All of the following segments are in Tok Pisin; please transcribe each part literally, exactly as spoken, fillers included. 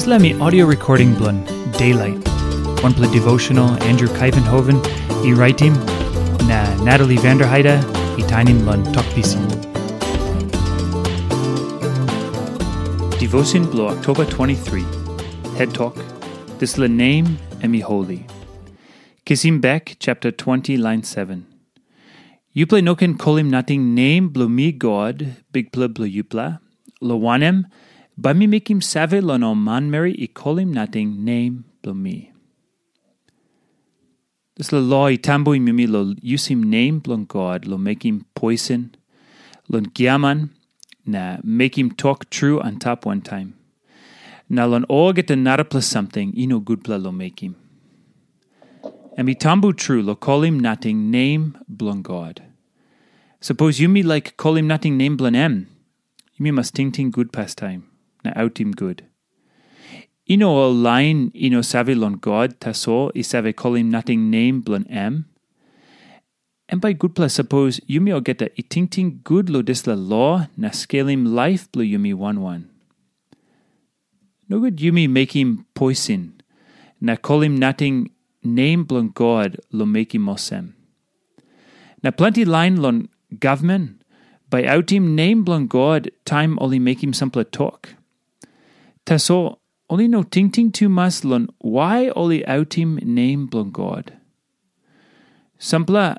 Dispela mi audio recording bilong Daylight, wanpela devotional Andrew Kaivenhoven i raitim, na Natalie Vanderheide i tainim long Tok Pisin. Devotion bilong Oktoba twenty-three. Head Talk, Dispela Nem em i Holi. Kisim Bek chapter twenty, lain seven. Yupela no ken kolim nating nem bilong mi God, Bikpela bilong yupela, lo wanem, bai mi mekim save long ol manmeri i kolim nating nem bilong mi. Dispela lo i tambuim yumi lo yusim nem bilong God lo mekim poisen, long giaman, na mekim tok tru antap wantaim, na long olgeta narapela samting i no gutpela lo mekim. Em i tambu tru lo kolim nating nem bilong God. Sapos yumi laik kolim nating nem bilong em, yumi mas tingting gut pastaim na autim gut. I no ol lain i no save long God tasol i save kolim nating nem bilong em. Em bai gutpela sapos yumi olgeta i tingting gut lo dispela lo na skelim laip bilong yumi wan wan. Nogut yumi mekim poisin na kolim nating nem bilong God lo mekim olsem. Na planti lain long gavman bai autim nem bilong God taim ol i mekim sampela tok. Tasol ol i no tingting tumas long wai ol i autim nem bilong God. Sampela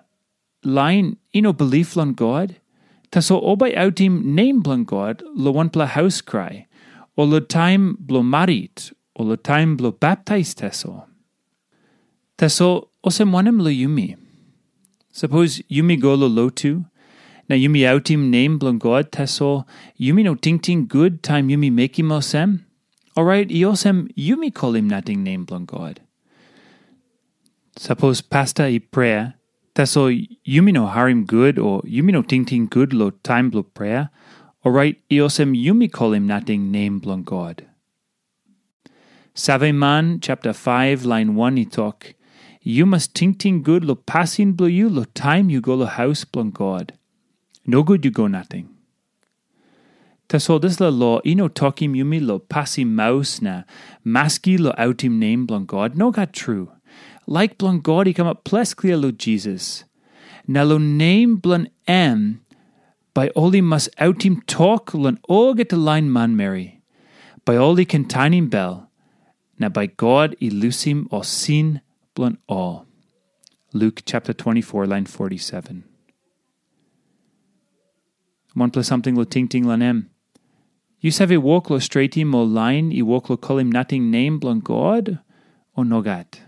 lain i no bilip long God, tasol ol bai autim nem bilong God long wanpela haus krai, o long taim bilong marit, o long taim bilong baptais tasol. Tasol olsem wanem long yumi? Sapos yumi go long lotu, na yumi autim nem bilong God, tasol yumi no tingting gut taim yumi mekim olsem, orait i olsem yumi kolim nating nem bilong God. Sapos pasta i prea, tasol yumi no harim gut o yumi no tingting gut long taim bilong prea, orait i olsem yumi kolim nating nem bilong God. Saveman chapter five lain one i tok, "Yu mas tingting gut long pasin bilong yu long taim yu go long haus bilong God. Nogut yu go nating." Tasol dispela lo i no tokim yumi long pasim maus na maski long autim nem bilong God. Nogat tru. Laik bilong God i kamap ples klia long Jisas. Na long nem bilong em, bai ol i mas autim tok long olgeta lain manmeri. Bai ol i ken tanim bel, na bai God i lusim ol sin bilong ol. Luke chapter twenty-four, lain forty-seven. Wanpela samting lo tingting long em. Yu save wok lo stretim ol lain i wok lo kolim nating nem bilong God, o nogat?